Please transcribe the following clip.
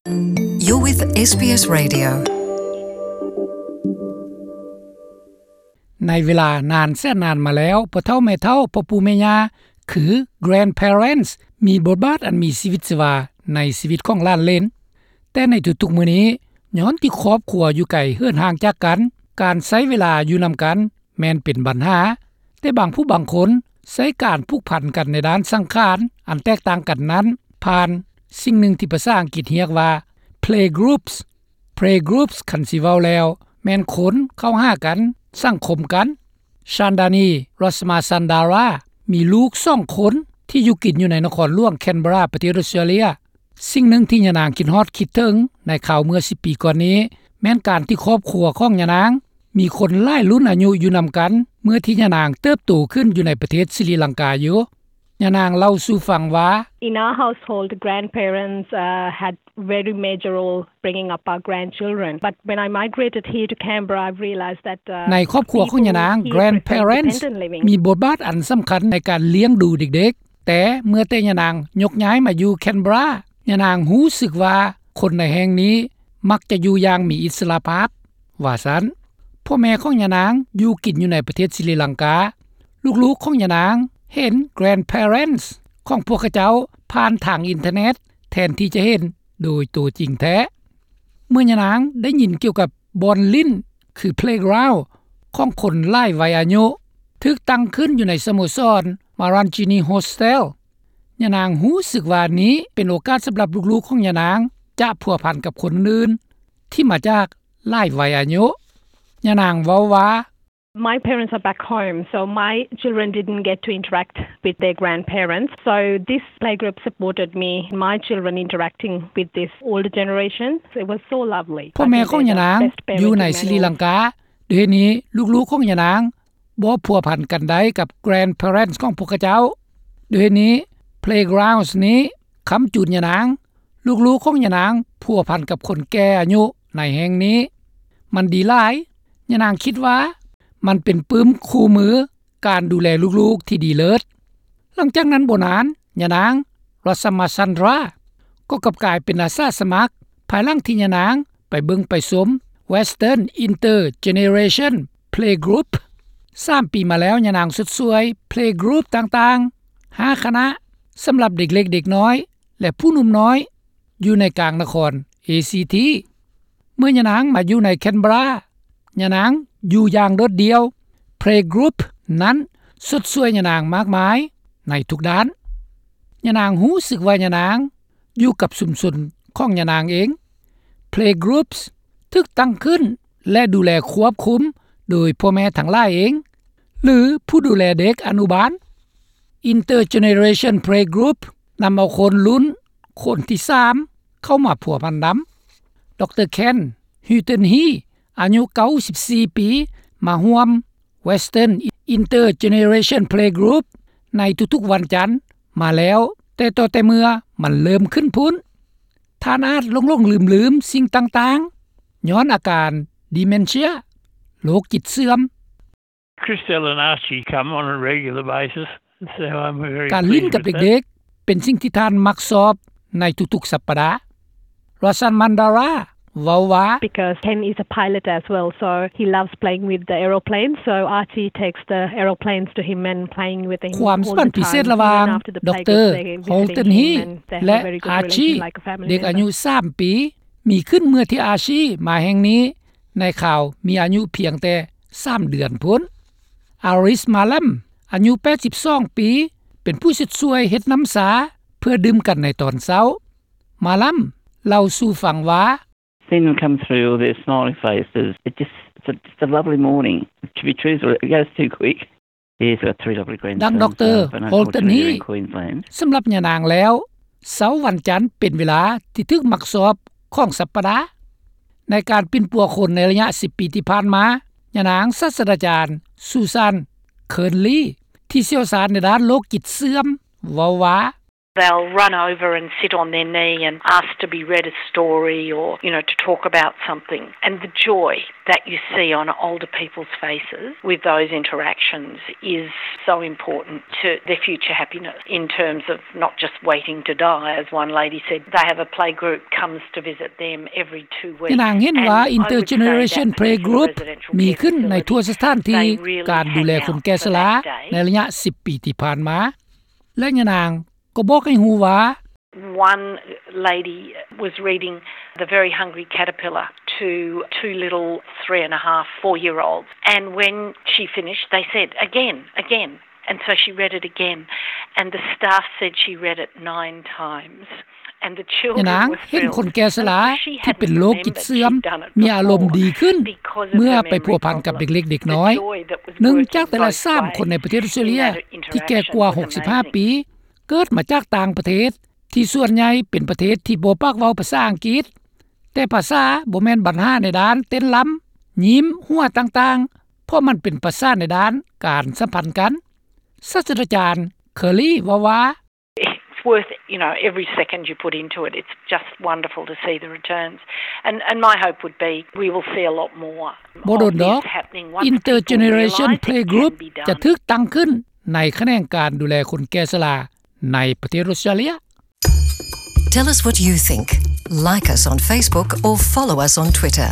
You're with ເອສ ບີ ເອส Radio. ໃນເວລານານແສນນານມາແລ້ວ, ພໍ່ເຖົ້າແມ່ເຖົ້າ, ພໍ່ປູ່ແມ່ຍ່າ ຄື grandparents ມີບົດບາດອັນມີຊີວິດຊີວາໃນຊີວິດຂອງຫຼານເລນ. ແຕ່ໃນທຸກໆມື້ນີ້, ຍ້ອນທີ່ຄອບຄົວຢູ່ໄກເຫີນຫ່າງຈາກກັນ, ການໃຊ້ເວລາຢູ່ນຳກັນ ແມ່ນເປັນບັນຫາ, ແຕ່ບາງຜູ້ບາງຄົນໃຊ້ການຜູກພັນກັນໃນດ້ານສັງຂານອັນແຕກຕ່າງກັນນັ້ນ ຜ່ານສິ່ງໜຶ່ງທີ່ພາສາອັງກິດຮຽກວ່າ playgroups. Playgroups ຄັນຊິເວົ້າແລ້ວ ແມ່ນຄົນເຂົ້າຫາກັນ, ສັງຄົມກັນ. ຊານດານີ ຣັດສະມາຊັນດາຣາ ມີລູກສອງຄົນທີ່ຢູ່ກິນຢູ່ໃນນະຄອນຫຼວງແຄນເບຣາ ປະເທດອອສເຕຣເລຍ. ສິ່ງໜຶ່ງທີ່ຍານາງຄິດຮອດຄິດເຖິງໃນຄາວເມື່ອສິບປີກ່ອນນີ້ ແມ່ນການທີ່ຄອບຄົວຂອງຍານາງມີຄົນຫຼາຍລຸ້ນອາຍຸຢູ່ນຳກັນ ເມື່ອທີ່ຍານາງເຕີບໂຕຂຶ້ນຢູ່ໃນປະເທດສະຣີລັງກາຢູ່. ຍານາງເລົ່າສູ່ຟັງວ່າ In our household, grandparents, uh, had very major role bringing up our grandchildren. But when I migrated here to Canberra, I realized that, uh, ໃນຄອບຄົວຂອງຍານາງ, grandparents ມີບົດບາດອັນສຳຄັນໃນການລ້ຽງດູເດັກໆ. ແຕ່ເມື່ອແຕ່ຍານາງຍົກຍ້າຍມາຢູ່ແຄນເບຣາ, ຍານາງຮູ້ສຶກວ່າຄົນໃນແຫ່ງນີ້ມັກຈະຢູ່ຢ່າງມີອິດສະຫຼະພາບ, ວ່າຊັ້ນ. ພໍ່ແມ່ຂອງຍານາງຢູ່ກິນຢູ່ໃນປະເທດສະຣີລັງກາ. ລູກໆຂອງຍານາງເຫັນ grandparents ຂອງພວກເຂົາເຈົ້າຜ່ານທາງອິນເຕີເນັດ ແທນທີ່ຈະເຫັນໂດຍຕົວຈິງແທ້. ເມື່ອຍານາງໄດ້ຍິນກ່ຽວກັບບ່ອນຫຼິ້ນ ຄື playground ຂອງຄົນຫຼາຍໄວອາຍຸ ຖືກຕັ້ງຂຶ້ນຢູ່ໃນສະໂມສອນ Marangini Hostel, ຍານາງຮູ້ສຶກວ່ານີ້ເປັນໂອກາດສຳລັບລູກໆຂອງຍານາງຈະພົວພັນກັບຄົນອື່ນທີ່ມາຈາກຫຼາຍໄວອາຍຸ. ຍານາງເວົ້າວ່າ My parents are back home, so my children didn't get to interact with their grandparents. So this playgroup supported me, my children interacting with this older generation. It was so lovely. ພໍ່ແມ່ຂອງຍານາງຢູ່ໃນສະຣີລັງກາ, ດ້ວຍເຫດນີ້ ລູກໆຂອງຍານາງບໍ່ພົວພັນກັນໄດ້ກັບ grandparents ຂອງພວກເຂົາເຈົ້າ. ດ້ວຍເຫດນີ້ playgrounds ນີ້ຄ້ຳຈູນຍານາງ. ລູກໆຂອງຍານາງພົວພັນກັບຄົນແກ່ອາຍຸໃນແຫ່ງນີ້. ມັນດີຫຼາຍ. ຍານາງຄິດວ່າມັນເປັນປຶ້ມຄູ່ມືການດູແລລູກໆທີ່ດີເລີດ. ຫຼັງຈາກນັ້ນບໍ່ນານ, ຍານາງ ຣັດສະມາຊັນດຣາ ກໍກັບກາຍເປັນອາສາສະໝັກ ພາຍຫຼັງທີ່ຍານາງໄປເບິ່ງໄປຊົມ Western Intergeneration Playgroup. ສາມປີມາແລ້ວ, ຍານາງຊົດຊ່ວຍ Playgroup ຕ່າງໆ ຫ້າຄະນະ ສຳລັບເດັກເລັກເດັກນ້ອຍ ແລະ ຜູ້ໜຸ່ມນ້ອຍ ຢູ່ໃນກາງນະຄອນ ເອຊີທີ. ເມື່ອຍານາງມາຢູ່ໃນແຄນເບຣາ, ຍານາງຢູ່ຢ່າງໂດດດ່ຽວ. Playgroup ນັ້ນຊົດຊ່ວຍຍານາງມາກມາຍໃນທຸກດ້ານ. ຍານາງຮູ້ສຶກວ່າຍານາງຢູ່ກັບຊຸມຊົນຂອງຍານາງເອງ. Playgroups ຖືກຕັ້ງຂຶ້ນ ແລະ ດູແລຄວບຄຸມໂດຍພໍ່ແມ່ທັງຫຼາຍເອງ ຫຼື ຜູ້ດູແລເດັກອະນຸບານ. Intergeneration Playgroup ນຳເອົາຄົນລຸ້ນຄົນທີສາມເຂົ້າມາພົວພັນນຳ. ດຣ. Ken Hilton-Hea ອາຍຸເກົ້າສິບສີ່ປີ ມາຮ່ວມ Western Intergeneration Playgroup ໃນທຸກໆວັນຈັນມາແລ້ວ ແຕ່ຕໍ່ແຕ່ເມື່ອມັນເລີ່ມຂຶ້ນພຸ້ນ. ທ່ານອາດຫຼົງໆລືມໆສິ່ງຕ່າງໆ ຍ້ອນອາການ dementia ໂລກຈິດເສື່ອມ. Christelle and Archie come on a regular basis, so I'm very pleased with that. ການຫຼິ້ນກັບເດັກໆ ເປັນສິ່ງທີ່ທ່ານມັກຊອບໃນທຸກໆສັບປະດາ. ຣັດສະມາຊັນດຣາ ເວົ້າວ່າ Because Ken is a pilot as well, so he loves playing with the aeroplanes, so Archie takes the aeroplanes to him and playing with him all the time. ຄວາມສຳພັນພິເສດລະຫວ່າງ Even after the playgroup, they visit him and they have a very good relation, like a family member. ດຣ. Hilton-Hea ແລະ Archie ເດັກອາຍຸສາມປີ ມີຂຶ້ນເມື່ອທີ່ Archie ມາແຫ່ງນີ້ ໃນຄາວມີອາຍຸພຽງແຕ່ສາມເດືອນພຸ້ນ. Aris Malam ອາຍຸແປດສິບສອງປີ ເປັນຜູ້ຊົດຊ່ວຍເຮັດນ້ຳຊາເພື່ອດື່ມກັນໃນຕອນເຊົ້າ. Malam ເລົ່າສູ່ຟັງວ່າ Seeing them come through with their smiling faces, it just, it's a, just a lovely morning. To be truthful, it goes too quick. Yes, I've got three lovely grandsons. ດັ່ງ ດຣ. Hilton-Hea ສຳລັບຍານາງແລ້ວ ເຊົ້າວັນຈັນເປັນເວລາທີ່ຖືກມັກຊອບຂອງສັບປະດາ. ໃນການປິ່ນປົວຄົນໃນໄລຍະສິບປີທີ່ຜ່ານມາ, ຍານາງສາດສະດາຈານ Susan Kearnley ທີ່ຊ່ຽວຊານໃນດ້ານໂລກຈິດເສື່ອມ ເວົ້າວ່າ They'll run over and sit on their knee and ask to be read a story or, you know, to talk about something. And the joy that you see on older people's faces with those interactions is so important to their future happiness in terms of not just waiting to die, as one lady said. They have a playgroup comes to visit them every two weeks. ຍານາງເຫັນວ່າ Intergeneration Playgroup ມີຂຶ້ນໃນທົ່ວສະຖານທີ່ການດູແລຄົນແກ່ຊະລາໃນໄລຍະສິບປີທີ່ຜ່ານມາ ແລະຍານາງກໍບອກໃຫ້ຮູ້ວ່າ One lady was reading The Very Hungry Caterpillar to two little three and a half, four year olds, and when she finished they said, "Again, again." And so she read it again, and the staff said she read it nine times. ຍານາງເຫັນຄົນແກ່ຊະລາທີ່ເປັນໂລກຈິດເສື່ອມມີອາລົມດີຂຶ້ນ ເມື່ອໄປພົວພັນກັບເດັກເລັກເດັກນ້ອຍ. ໜຶ່ງຈາກແຕ່ລະສາມຄົນໃນປະເທດອອສເຕຣເລັຍທີ່ແກ່ກວ່າຫົກສິບຫ້າປີ ເກີດມາຈາກຕ່າງປະເທດ ທີ່ສ່ວນໃຫຍ່ເປັນປະເທດທີ່ບໍ່ປາກເວົ້າພາສາອັງກິດ. ແຕ່ພາສາບໍ່ແມ່ນບັນຫາໃນດ້ານເຕັ້ນລຳ, ຍິ້ມ, ຫົວຕ່າງໆ ເພາະມັນເປັນພາສາໃນດ້ານການສຳພັນກັນ. ສາດສະດາຈານ Curley ເວົ້າວ່າ It's worth, you know, every second you put into it. It's just wonderful to see the returns. And, and my hope would be we will see a lot more. ບໍ່ດົນດອກ Intergeneration Playgroup ຈະຖືກຕັ້ງຂຶ້ນໃນຂະແໜງການດູແລຄົນແກ່ຊະລາໃນປະເທດອອສເຕຣເລັຍ. Tell us what you think. Like us on Facebook or follow us on Twitter.